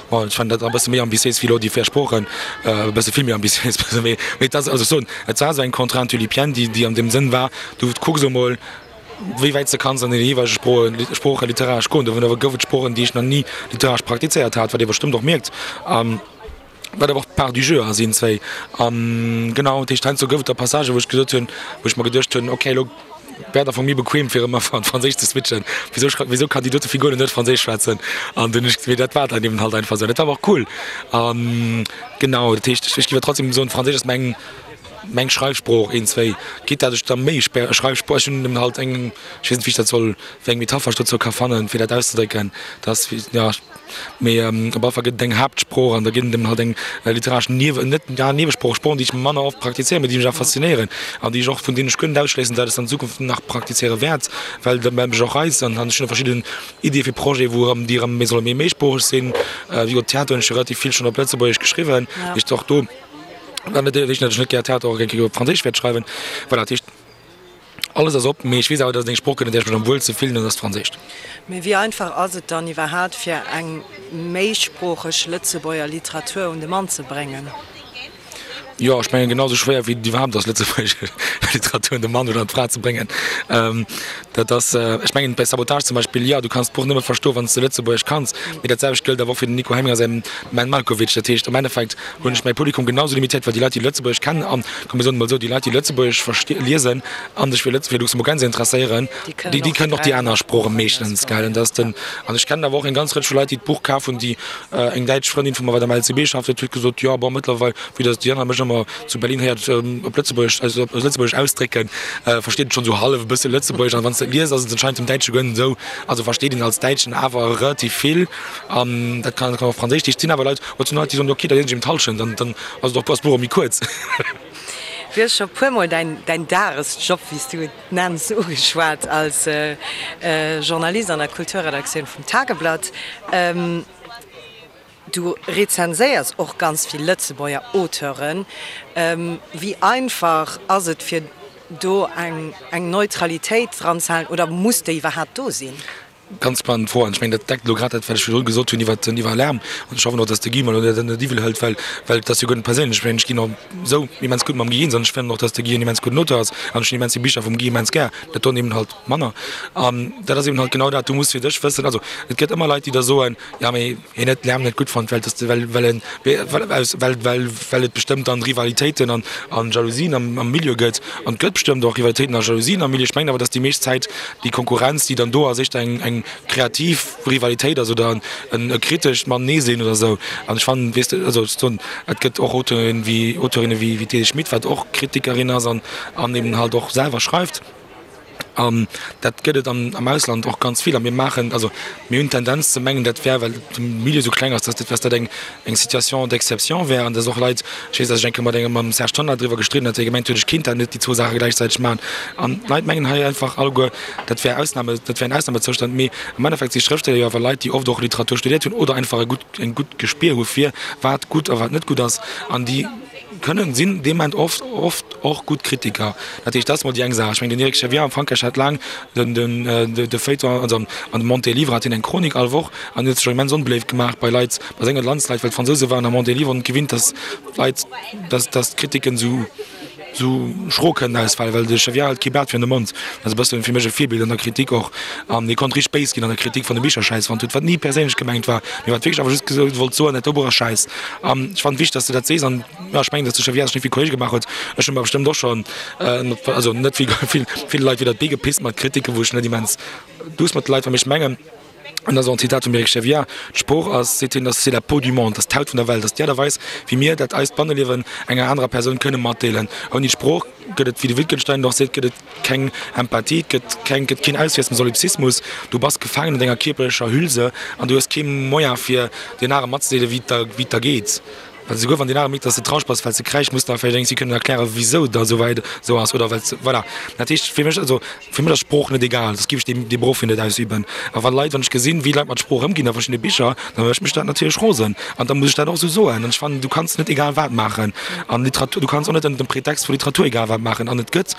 Bon, ech fannen dat e bësse méi ambitiéis wéi elo déi 4 Sproochen, e bësse vill méi ambitiéis, mee et ass, also ech soen, et war esou eng Contrainte oulipienne, déi, déi an deem Sënn war, du kucks emol, wéi wäit s de kanns an deene jeeweilege Sproe, Sprooche literaresch goen. Dovunner gouf et Sproochen, déi ech nach ni literaresch praktizéiert hat, wat ee bestëmmt och mierkt, wat awer och part du jeu ass iergendzwéi. An genau, dat heescht, heiansdo gouf et da Passagen, wou ech gesot hunn, wou ech mer geduecht hunn, okay, elo Wär et am Fong méi bequem fir ëmmer an Franséisch ze switchen. Wisou schreift, wisou kann déi dote Figur net Franséisch schwätzen? An dunn ech, mee dat war dann eben halt einfach esou. Dat war awer och cool. An genau, dat heescht, ech géif awer trotzdem soen, Franséisch ass meng. Meng Schreifsprooch, een, zwéi, geet dat ech da méi Schreifsprooch, ech hunn halt eng, ech weess net wéi ech dat soll, wéi eng Metapher ech dozou ka fannen, fir dat auszedrécken, dass, jo, mee op alle Fall gëtt et eng Haaptsprooch an da ginn et eben halt eng literaresch Niewe, net, ja, Niewesprooch, Sproochen, déi ech manner oft praktizéieren, mee déi mech awer faszinéieren an déi ech och, vun deenen ech guer net ausschléissen, dat ech se an Zukunft nach praktizéiere wäert, well dat mech och reizt an ech hunn och verschidden Iddie fir Projete wou erëm, déi erëm méi solle méi méisproocheg sinn. Wéi gesot, Theater hunn ech jo relativ vill schonn op Lëtzebuergesch geschriwwen, heescht och do, Wat net heescht, datt ech net gär Theater och eng Kéier op Franséisch wäert schreiwen. Voilà, dat heescht, alles ass op, mee ech weess awer, datt et eng Sprooch gëtt, an där ech mech am wuelste fillen, an dat ass d'Franséischt. Mee wéi einfach ass et dann iwwerhaapt, fir eng méisproocheg Lëtzebuerger Literatur un de Mann ze bréngen? Jo, ech mengen, genau esou schwéier wéi et iwwerhaapt ass, lëtzebuergesch Literatur un de Mann oder un d'Fra ze bréngen. Dat ass, ech mengen, bei Sabotage zum Beispill, jo, du kanns d'Buch nëmme verstoen, wann s de Lëtzebuergesch kanns. Mee dat selwecht gëllt awer och fir den Nico Hemminger säin Menn Malkowitsch. Dat heescht, am Endeffekt hunn ech mäi Publikum genau sou limitéiert, well déi Leit, déi Lëtzebuergesch kennen an, komm mir soen et mol esou, déi Leit, déi Lëtzebuergesch versti liesen a sech fir Lëtz fir Luxemburgense interesséieren, déi, déi kënnen och déi aner Sprooche meeschtens, gell. An dat ass den, an ech kennen awer och eng ganz Rëtsch vu Leit, déi d'Buch kaf hunn, déi eng däitsch Frëndin vu mer, wat am LCB schafft huet, huet gesot, jo, bon, mëttlerweil, vue dass déi aner mech ëmmer zu Berlin héiert op Lëtzebuergesch, also op Lëtzebuergesch ausdrécken, versteet en schonn esou hallef e bësse Lëtzebuergesch. An wann s de et liest, ass et anscheinend dem Däitsche guer net esou. Also versteet een als Däitschen awer relativ vill. An dat kann och Franséisch. Et sinn awer Leit, oder et sinn Leit, déi soen, ok, da liesen ech eben d'Hallschent, an dann ass et och, ass d'Buch och méi kuerz. Du hues scho puermol däin, däin Dagesjob, wéi s du et nenns, ugeschwat als Journalist an der Kulturredaktioun vum Tageblatt. Du rezenséiers och ganz vill Lëtzebuerger Auteuren. Wéi einfach ass et fir do eng Neutralitéit dran ze halen oder muss déi iwwerhaapt do sinn? Ganz spannend Fro an ech mengen dat deckt elo grad dat wat ech virdru gesot hunn iwwert den iwwer Lärm an ech hoffen och, datt de Guy mer elo dat net iwwel hëlt, well well et ass jo guer net perséinlech. Ech mengen ech ginn och esou immens gutt mam Guy eens an ech fannen och, datt de Guy en immens gudden Auteur ass an ech hunn immens vill Bicher vum Guy immens gär, dat doen eben halt manner an dat ass eben halt genau dat, du muss fir dech wëssen, also et gëtt ëmmer Leit déi da soen, jo mee hien huet Lärm net gutt fonnt, well dass de well well en well aus well well well et bestëmmt dann Rivalitéiten an an Jalousien am am Milieu gëtt. An et gëtt bestëmmt och Rivalitéiten a Jalousien am Milieu. Ech mengen awer, dass déi meescht Zäit déi Konkurrenz, déi dann do ass, éischter eng eng kreativ Rivalitéit ass oder en e kritescht Matenee-sinn oder esou. An ech fannen, weess de, also ech soen, et gëtt och Auteuren wéi Auteurinne wéi wéi d'Edith Schmit, wat och Kritikerin ass an an eben halt och selwer schreift. An dat gëtt et am Ausland och ganz vill. A mir maachen, also mir hunn d'Tendenz ze mengen, dat wär, well de Milieu esou kleng ass, dass dat eng Situation d'exception wär an dass och Leit, ech weess, dass ech eng Kéier mat engem, mam Serge Tonnar driwwer gestridden hat, dee gemengt huet, ech kéint dat net, déi zwou Saache gläichzäiteg maachen. An d'Leit mengen hei einfach alleguer, dat wär Ausnahme, dat wär en Ausnahmezoustand. Mee am Endeffekt si Schrëftsteller jo awer Leit, déi oft och Literatur studiert hunn oder einfach e gutt, e gutt Gespier hu fir wat gutt a wat net gutt ass an déi, Kënnen sinn dee Moment oft oft och gutt Kritiker. Dat heescht, dat ass mol déi eng Saach. Ech mengen, den Eric Chevien am Frankräich hat laang den den de Feuilleton, also an dem Monde des Livres hat hien eng Chronik all Woch an huet sech och immens onbeléift gemaach bei Leit, bei senge Landsleit, well d'Fransouse waren am Monde des Livres net gewinnt, datt d'Leit, datt datt d'Kritiken esou esou schro kënnen ausfalen, well de Chevien hält kee Blat virun de Mond. Dat ass e bëssen fir mech e Virbild an der Kritik och. An hie konnt richteg béis ginn an der Kritik, wann e Bicher schäiss fonnt huet, wat ni perséinlech gemengt war, mee wat wierklech awer just gesot wollt soen, dat do Buch ass schäiss. An ech fannen et wichteg, dass de dat sees. An jo, ech mengen, dass de Chevien sech net vill Kolleege gemaach huet. Ech hu mer bestëmmt och schonn, also net vill, vill, ville Leit widder d'Bee gepisst mat Kritiken, wou ech net immens duuss mat de Leit war. Mee ech mengen, an dat ass och en Zitat vum Eric Chevien, D'Sprooch ass, seet hien, ass c'est la peau du monde, ass d'Haut vun der Welt, ass déi Aart a Weis, wéi mir dat eist Banneliewen enger anerer Persoun kënne matdeelen. Ouni d'Sprooch gëtt et, wéi de Wittgenstein et och seet, gëtt et keng Empathie, et gëtt keng, gëtt keen Auswiess dem Solipsismus. Du bass gefaangen an denger kierperlecher Hülse an du hues kee Moyen fir deen anere matzedeelen, wéi et der, wéi et der geet. Well esouguer wann deen anere mierkt, dass de traureg bass, well s de kräisch, muss de awer vläicht eng Kéier kënnen erklären, wisou et der esou wäit esou ass oder well s, voilà. Dat heescht fir mech, also fir mech ass Sprooch net egal, soss géif ech dee, dee Beruff jo net ausüben. A wa Leit, wann ech gesinn, wéi Leit mat Sprooch ëmginn a verschiddene Bicher, da mécht mech dat natierlech rosen an da muss ech dat och esou soen. An ech fannen, du kanns net egal wat maachen an Literatur, du kanns och net ënnert dem Pretext vu Literatur egal wat maachen. An et gëtt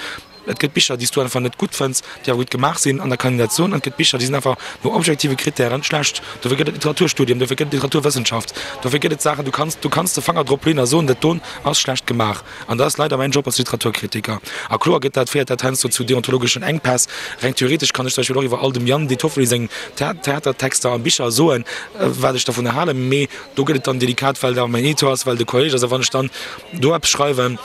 Et gëtt Bicher, déi s du einfach net gutt fënns, déi awer gutt gemaach sinn, an da kann een dat soen. An et gëtt Bicher, déi sinn einfach no objektive Krittären schlecht. Dofir gëtt et Literaturstudien, dofir gëtt et Literaturwëssenschaft, dofir gëtt et Saachen, du kanns, du kanns de Fanger drop leeën a soen, dat doen ass schlecht gemaach. An dat ass leider mäin Job als Literaturkritiker. A kloer gëtt dat, féiert dat heiansdo zu deontologeschen Enkpäss. Reng theoretesch kann ech zum Beispill och iwwer all dem Yann De Toffoli seng Theatertexter a Bicher soen, wat ech dervunner halen, mee do gëtt et dann delikat, well et awer mäin Editor ass, well et e Kolleg ass. A wann ech dann do eppes schreiwen,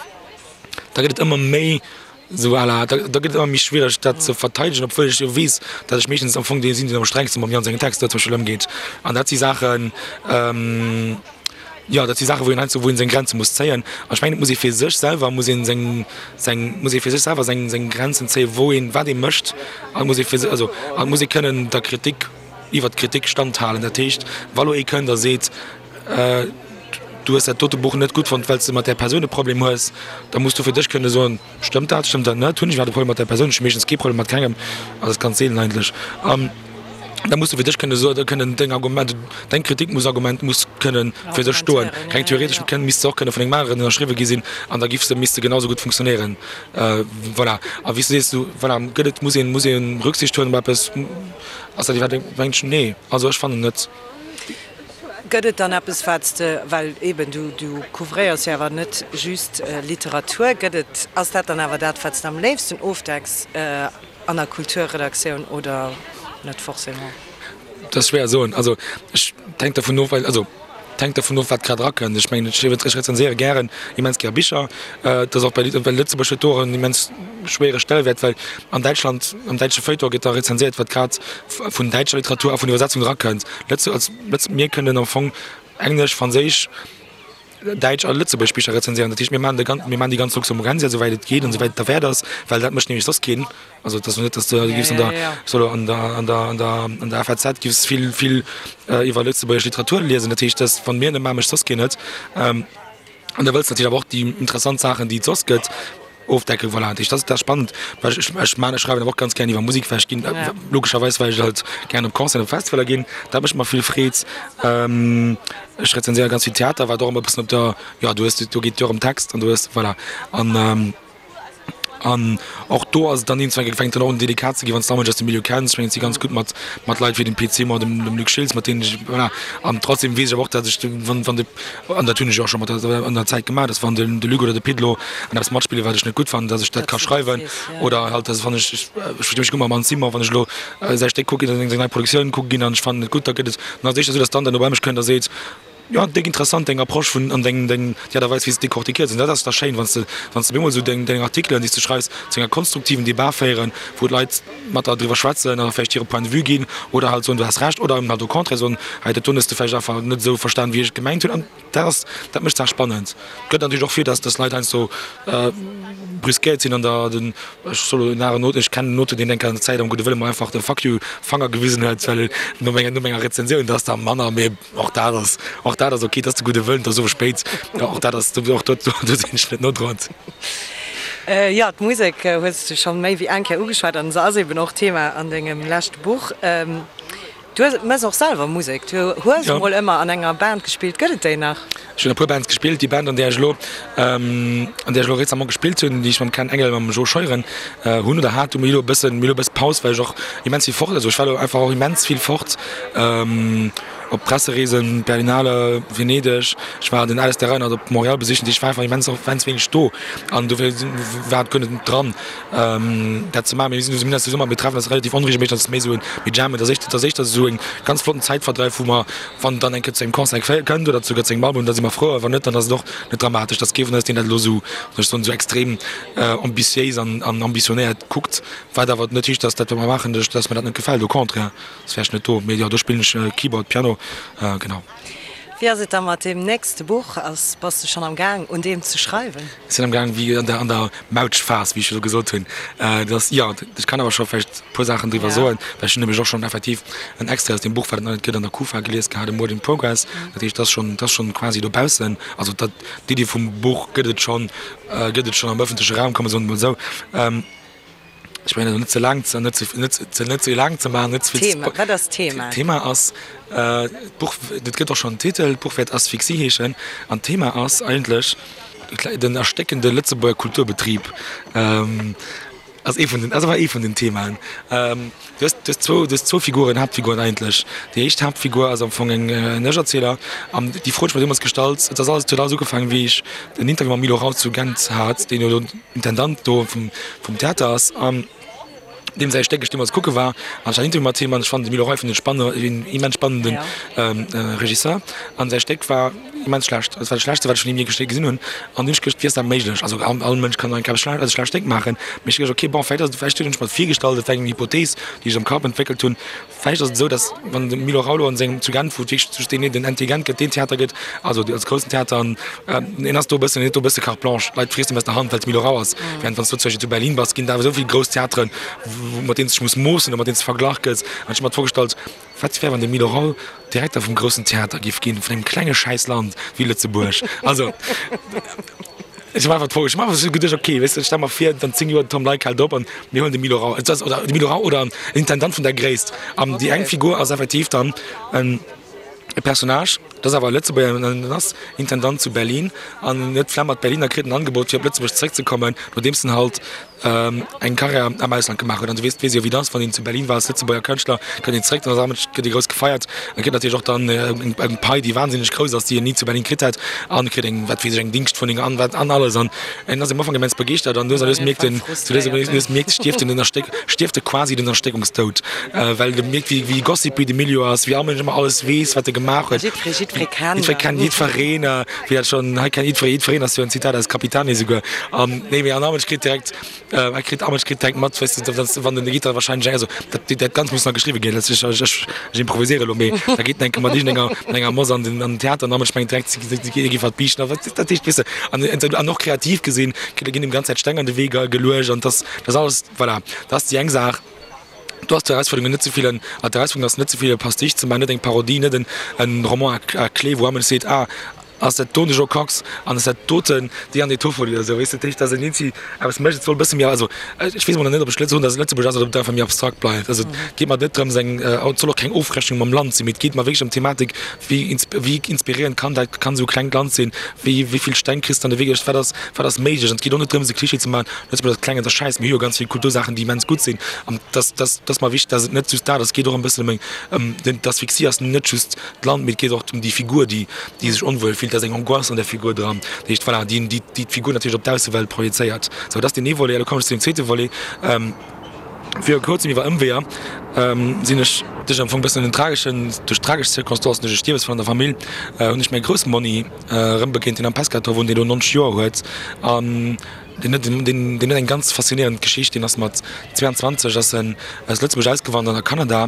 da gëtt et ëmmer méi esou à la, da gëtt et ëmmer méi schwiereg dat ze verteidegen, obwuel ech jo weess, datt ech meeschtens am Fong dee sinn, deen am strengste mam Yann sengen Texter zum Beispill ëmgeet. An dat si Saachen. Jo, dat si Saachen, wou een heiansdo, wou een seng Grenze muss zéien. An ech mengen, et muss ee fir sech selwer, muss een seng, seng, muss ee fir sech selwer seng, seng Grenzen zéien, wou een, wat ee mécht. An et muss ee fir sech, also, an et muss ee kënnen der Kritik, iwwert d'Kritik standhalen. Dat heescht, wa lo ee kënnt a seet, Du hues dat dote Buch net gutt fonnt, well s de mat där Persoun e Problem hues, da muss du fir dech kënne soen, Stëmmt dat, stëmmt dat net? Hunn ech iwwerhaapt e Problem mat där Persoun? Ech hu meeschtens kee Problem mat kengem, also dat ass ganz seelen eigentlech. An da muss du fir dech kënne soen, kënnen deng Argument, deng Kritik muss Argument muss kënnen fir sech stoen. Reng theoretesch kënn, misst se och kënne vun engem aneren ënnerschriwwe gi sinn an da giff se, misst se genau sou gutt funktionéieren. Voilà. A wéi s du sees, du, voilà, gëtt et, muss een, muss ee Rücksicht huelen op eppes? Ass dat iwwerhaapt eng, nee, also ech fannen net. Gëtt et dann eppes, wat s de, well eben du, du couvréiers jo awer net just Literatur, gëtt et, ass dat dann awer dat, wat s de am léifsten ofdecks an der Kulturredaktioun oder net forcément? Dat ass schwéier soen. Also ech, et hänkt dervun of, well, also et hänkt dervun of, wat grad erakënnt. Ech mengen, ech ech rezenséiere gären, immens gär Bicher. Et ass och bei, well Lëtzebuerg huet do och en immens schwéiere Stellewäert, well an Däitschland, am däitsche Feuilleton gëtt da rezenséiert, wat grad vun däitscher Literatur a vun Iwwersetzung erakënnt. Lëtze als Lëtz mir kënnen am Fong Englesch, Franséisch, Däitsch a lëtzebuergesch Bicher rezenséieren. Dat heescht, mir maachen de gan mir maachen déi ganz Luxemburgensia, esouwäit et geet an esouwäit et derwäert ass, well dat mécht nämlech soss keen. Also et ass jo net, datt du giffs an der solo an der an der an der an der FAZ giffs vill vill iwwer lëtzebuergesch Literatur liesen. Dat heescht, dass wann mir net maachen, mécht soss keen et. An da wëlls de natierlech awer och déi interessant Saachen, déi et soss gëtt, ofdecken. Voilà, dat heescht, dat ass spannend, well ech, ech maan, ech schreiwen awer och ganz gären iwwer Musek, well ech ginn, logescherweis, well ech halt gären op Concerten, op Festivaler ginn, dat mécht mer vill Freed. Ech rezenséiere ganz vill Theater, wat och ëmmer e bëssen op der, jo, du hues, do geet et jo och ëm Text an du hues, voilà, an. An och do ass et dann iergendwann, fänkt dann och un delikat ze ginn, wann s de Amesch aus dem Milieu kenns. Ech mengen, et si ganz gutt mat, mat Leit wéi dem Pit Simon, dem, dem Luc Schiltz, mat deenen ech, voilà. An trotzdem weess ech awer och, datt ech, wann, wann de, an dat hunn ech jo och scho mat der, an der Zäit gemaach, datt wann den, de Luc oder de Pit elo an eppes matspillen, wat ech net gutt fannen, datt ech dat ka schreiwen. Oder halt, datt wann ech, ech versti mech gutt mam Anne Simon, wann ech elo säi Stéck kucke ginn, seng nei Produktioun kucke ginn an ech fannen et gutt, da gëtt et, dann ass et éischter esou, datt d'Anne dann no bei mech kënnt a seet, Jo, déck interessant deng Approche vun an deng deng déi Aart a Weis wéi s de decortiquéiers. An dat ass da schéin, wann s de wann s de bemol esou deng deng Artikelen déi s de schreifs zu enger konstruktiven Debat féieren, wou d'Leit mat der driwwer schwätzen a vläicht hire Point de vue ginn oder halt soen, du has Recht oder eben halt au contraire soen, hei dat doen hues de vläicht einfach net esou verstan wéi ech et gemengt hunn. An dat ass dat mécht d'Saach spannend. Gëtt natierlech och vir, dass dass Leit heiansdo brüskéiert sinn an der den ech soll elo en aneren Auteur, ech kennen en Auteur, deen enker an der Zäit am gudde Wëlle mer einfach de Fuck you Fanger gewisen huet, well no menger no menger Rezensioun, dat ass da manner, mee. Och dat ass, och dat ass ok, et ass de gudde Wëllen, et ass owes spéit, och dat ass, och do, do sinn ech net nodroend. Jo, d'Musek hues de scho méi wéi eng Kéier ugeschwat an se ass eben och Thema an dengem leschte Buch. Du mëss och selwer Musek, du hues emol ëmmer an enger Band gespillt, gëtt et déi nach? Ech hunn a puer Bands gespillt. Déi Band, an där ech elo, an där ech elo récemment gespillt hunn, déi ech mam Ken Engel, mam Jo Scheuren hunn oder hat, hu mir elo e bëssen, mir elo e bësse Paus, well ech och immens vill fort, also ech war elo einfach och immens vill fort op Pressereesen, Berlinale, Venedeg, ech war den Alistair Reinert op Montréal besichen, ech war einfach immens och immens wéineg do an dofir war et guer net dran dat ze maachen. Mee mir sinn mir sinn mir treffen eis relativ onregelméisseg, dat ass méi esou en, mir jammen, dat ass éischter, dat ass éischter esou en ganz flotten Zäitverdreif, wou mer Wann dann eng Kéier zu engem Concert kënnt oder souguer zu engem Album, da si mer frou, a wann net, dann ass et och net dramatesch. Dat ass kee vun eis, deen dat elo esou, soll ech soen, esou extrem ambitiéis an ambitionéiert kuckt, wat awer net heescht, dass dat, wat mer maachen, dass mer dat net gefält, au contraire, soss wär ech net do. Mee jo, do spillen ech Keyboard, Piano, genau. Wéi ass et da mat deem nächste Buch? Ass, bass de schonn am Gaang, un deem ze schreiwen? Ech sinn am Gaang, wéi an der, an der Mautschphas, wéi ech elo gesot hunn. Dat ass, jo, ech kann awer scho vläicht e puer Saachen driwwer soen, well ech hunn nämlech och schonn effektiv en Extrait aus deem Buch, wat et nach net gëtt, an der Kufa gelies gehat, e Work in Progress. Dat heescht, dat ass schonn, dat ass schonn quasi dobaussen. Also dat, d'Iddi vum Buch gëtt et schonn, gëtt et schonn am ëffentleche Raum, kann mer soen, emol esou. Ech mengen elo net ze laang ze, net ze, net ze, net ze laang ze maachen, net ze vill ze Thema, wat ass d'Thema? D'Thema ass, d'Buch, et gëtt och schonn en Titel, d'Buch wäert Asphyxie heeschen an d'Thema ass eigentlech den erstéckende Lëtzebuerger Kulturbetrib. Ass ee vun den, ass awer ee vun den Themaen. Du hues, du hues zwou, du hues zwou Figuren, Haaptfiguren eigentlech. Déi éischt Haaptfigur ass am Fong eng, en Ech-Erzieler an déi Fro hunn ech mer deemools gestallt, et ass alles, et huet alles ugefaangen, wéi ech en Interview mam Milo Rau zu Gent hat, deen jo elo Intendant do vum vum Theater ass an deem säi Stéck ech deemools kucke war an ech hat en Interview mat him an ech fannen de Milo Rau fannen ech spanne een immens spannenden Regisseur an säi Stéck war. immens schlecht. Dat war dat Schlechtste, wat ech vun him jee gesinn hunn. An dunn hunn ech geduecht, wéi ass dat méiglech? Also all, all Mënsch kann eng Kéier eppes also schlecht Déng maachen. Mee ech hu geduecht, okay, bon, vläicht ass et, vläicht hunn ech mer et virgestallt, et war eng Hypothees, déi ech am Kapp entwéckelt hunn. Vläicht ass et esou, datt wann de Milo Raulo an sengem zu Genf, wou et wierklech just deen, den NT Gent gëtt, deen Theater gëtt, also als groussen Theater, an en ass do e bëssen, en huet do e bësse carte blanche, d'Leit friessen em aus der Hand, well et Milo Rau ass. Während wann s du zum Beispill zu Berlin bass, ginn et awer esou vill grouss Theateren, mat deenen s de dech muss moossen oder mat deenen s de verglach gëss. An ech hu mer d'Fro gestallt, Wat wär, wann de Milo Rau Direkter vum groussen Theater giff ginn, vun engem klenge schäiss Land wéi Lëtzebuerg? Also, ech hu mer einfach d'Fro, ech hu mer einfach esou geduecht, okay, weess de, stell mer vir, an 10 Joer, den Tom Leick hält op an mir huelen de Milo Rau, et ass, oder de Milo Rau oder en Intendant vun der Gréisst. An déi eng Figur ass effektiv dann en e Personnage, dat ass awer e Lëtzebuerger, en en ass Intendant zu Berlin an en huet d'Flemm mat Berlin a kritt en Angebot fir op Lëtzebuerg zeréckzekommen, nodeems en halt eng Karriär am Ausland gemaach huet. An du weess, weess jo wéi et ass, wann een zu Berlin war als Lëtzebuerger Kënschtler, kënnt een zeréck, dann ass awer gëtt ee grouss gefeiert a kritt natierlech och dann eng Pai, déi wahnsinneg grouss ass, déi een ni zu Berlin kritt hätt an kritt eng, wat weess ech, eng Dingschtwunneng an wat an alles. An en ass am Ufank immens begeeschtert an lues a lues mierkt en, sou lues a lues mierkt, stierft en den Erstéck, stierft e quasi den Erstéckungstoud, well e mierkt, wéi wéi gossipy de Milieu ass, wéi all Mënsch ëmmer alles weess, wat e gemaach huet. Jiddweree, jiddweree kennt. Jiddweree kennt jiddwereen, wéi dat schonn hei kennt jiddweree jiddwereen ass jo en Zitat aus Capitani esouguer. An nee, mee an all Mënsch kritt direkt, e kritt, all Mënsch kritt direkt mat, weess de, dass wann den Gitarre wahrscheinlech, also dat, dat Ganzt muss nach geschriwwe ginn, dat ech, ech, ech improviséiere elo, mee da geet en eng Kéier mat iergendenger, mat enger Moss an den, an den Theater an all Mënsch mengt direkt, si, si, si géif wat biichten a wat, dat heescht, weess de, an, an och kreativ gesinn, ginn him ganz Zäit Steng an de Wee geluecht an dass, dat alles, voilà, dat ass déi eng Saach. Do ass d'Erausfuerderung net ze vill en, d'Erausfuerderung ass net ze vill e Pastiche ze maachen, net eng Parodie, net en, en Roman à, à clé, wou all Mënsch seet, ah, ass dat do de Jo Kox an ass dat doten déi an déi Toffoli oder esou, weess de. Dat heescht, dass een eenzi eppes mécht, et soll e bësse méi, also ech weess emol nach net, ob ech soen, dass et Lëtzebuerg ass oder ob et einfach méi abstrakt bleift. Also et geet mer net drëms eng, et soll och keng Ofrechnung mam Land sinn, mee et geet mer wierklech ëm d'Thematik, wéi wéi inspiréierend kann dat, kann esou e klengt Land sinn, wéi wéi vill Steng kriss de an de Wee geluecht, wat ass, wat ass méiglech. An et geet och net drëms e Klischee ze maachen, Lëtzebuerg ass kleng an et ass schäiss, mir hu jo ganz vill Kultursaachen, déi immens gutt sinn an dass, dass, dass mer wichteg, dass et net just dat ass, et geet och e bëssen ëm eng, ëm den, d'Asphyxie ass net just d'Land, mee et geet och ëm déi Figur, déi, déi sech onwuel fillt, da ass eng Angoisse an der Figur dran, dat heescht, voilà, déi, déi, déi d'Figur natierlech op d'Aussewelt projezéiert. Sou, dat ass deen ee Volet. A lo kommen ech zu deem zweete Volet. Viru kuerzem iwwer Ëmweeër sinn ech duerch am Fong e bëssen en trageschen, duerch tragesch Circonstancen, duerch e Stierwesfall an der Famill, hunn ech mäi Groussmonni erëmbegéint, deen am Pescator wunnt, deen elo 90 Joer huet an deen huet, deen, deen huet eng ganz faszinéierend Geschicht. Deen ass mat 22 ass en aus Lëtzebuerg ausgewandert a Kanada.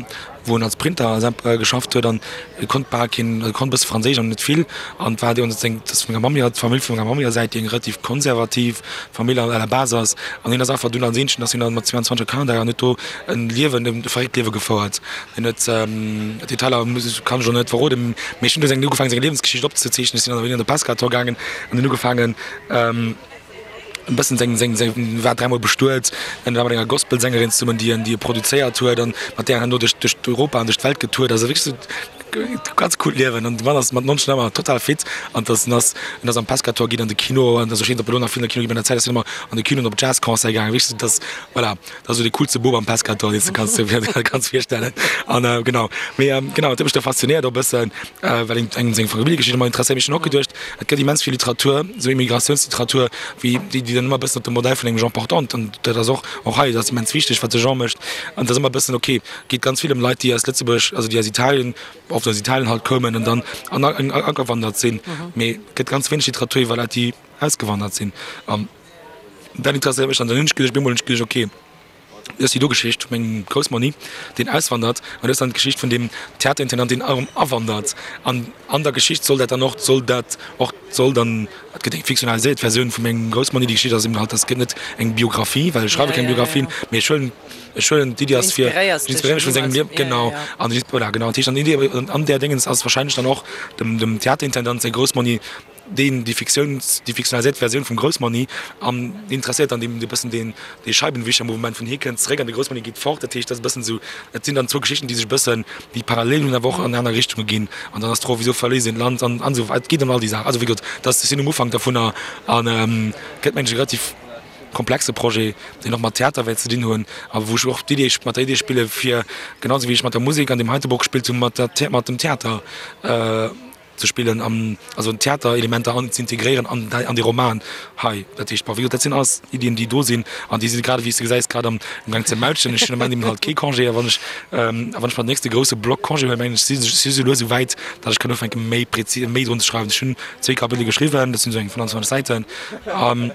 wou en als Printer geschafft huet an e konnt bal keen, e konnt e bësse Franséisch awer net vill an war dee seng, dat ass vun menger Mamm hier, d'Famill vun menger Mamm hier Säit, déi eng relativ konservativ Famill à la base ass an hien ass einfach dunn als Eenzegen ass hien dann mat 22 a Kanada an huet do en Liewen, e verréckt Liewe gefouert. Hien huet, Detailer muss ech, kann ech elo net verroden, mee ech hunn du seng ugefaangen seng Liewensgeschicht opzezeechnen, ech sinn dann bei hien an de Pescator gaangen an hunn ugefaangen, e bëssen seng, seng, seng, war dräimol bestuet, en war mat enger Gospelsängerin zesummen, déi en, déi e produzéiert huet an mat där en herno duerch, duerch Europa an duerch d'Welt getourt ass. Also wierklech esou ganz coolt Liewen an de Mann ass mat 90 nach ëmmer total fit an dass en ass, en ass am Pescator ginn an de Kino an also ech weess net, ob e lo nach vill an de Kino geet, mee an der Zäit ass hien ëmmer an de Kino an op Jazzconcerte gaangen, wierklech esou dass, voilà, dat ass esou dee coolste Bub am Pescator, deen s de kanns dir kanns virstellen an genau. Mee genau, dat huet mech da faszinéiert och e bëssen, well een engem seng Familljegeschicht ëmmer interesséiert. Mee ech hunn och geduecht, Et gëtt immens vill Literatur, esou Immigratiounsliteratur, wéi déi, déi dann ëmmer e bëssen op dem Modell vun engem Jean Portante, an dat ass och, och hei, dat ass immens wichteg, wat de Jean mécht, an et ass ëmmer e bëssen, okay, geet ganz vill ëm Leit, déi aus Lëtzebuerg, also déi aus Italien, oft aus Italien halt koumen an dann an agewandert sinn, mee et gëtt ganz wéineg Literatur iwwer Leit, déi ausgewandert sinn. An dat interesséiert mech dann. Dann hunn ech geduecht, op eemol hunn ech geduecht, okay, Du hues déi do Geschicht vu mengem Groussmonni, deen auswandert, an du hues dann d'Geschicht vun deem Theaterintendant, deen erëm awandert. An an der Geschicht soll dat dann och, soll dat och, soll dann, et gëtt eng fiktionaliséiert Versioun vu mengem Groussmonni. Déi Geschicht ass eben halt, dat gëtt net eng Biographie, well ech schreiwe keng Biographien, mee ech huelen, ech huelen d'Iddi ass fir, ech inspiréiere mech vu sengem Liewen, genau. An voilà, genau. Dat heescht, an d'Iddi an där Déngens ass wahrscheinlech dann och dem, dem Theaterintendant säi Groussmonni, deen déi Fiktiouns, déi fiktionaliséiert Versioun vum Groussmanni an interesséiert dann deen e bëssen deen dee Scheibenwischermouvement vun hie kënnt zeréck an de Groussmanni geet fort. Dat heescht, dat ass e bëssen esou, et sinn dann zwou Geschichten, déi sech e bëssen, déi parallel hunn, awer och an aner Richtunge ginn. An dann ass d'Fro, wisou verléisst een d'Land an an esou weider. Et geet ëm all déi Saachen. Also wéi gesot, dat ass, ech sinn um Ufank dovunner an gëtt mengen ech e relativ komplexe Projet, deen och mat Theater wäert ze dinn hunn a wou ech och d'Idee, mat der Idee spille fir, genau esou wéi ech mat der Musek an deem heite Bock gespillt hunn, mat der, mat dem Theater. ze spillen an also Theaterelementer an ze integréieren an an dee Roman hei. Dat heescht, bon, wéi gesot, dat sinn alles Iddien, déi do sinn an déi si grad, wéi s de gesäis, grad am Gaang ze mautschen. Ech hunn am Ament eben halt kee Congé a wann ech a wann ech mer den nächste grousse Block Congé huelen, mengen ech, si si sou lues esou wäit, datt ech kann ufänke méi prezis, méi drun ze schreiwen. Ech hunn zwéi Kapitele geschriwwen, dat sinn esou eng 25 Säiten an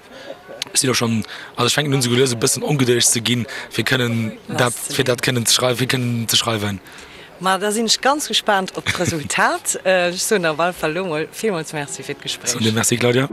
ech sinn och schonn, also ech fänken un esou lues e bëssen ongedëlleg ze ginn, fir kënnen dat, fir dat kënnen ze schreiwen, fir kënnen ze schreiwen. Ma da sinn ech ganz gespaant op d'Resultat. Ech soen der op alle Fall elo mol villmools Merci fir d'Gespréich. Soen dir Merci, Claudia.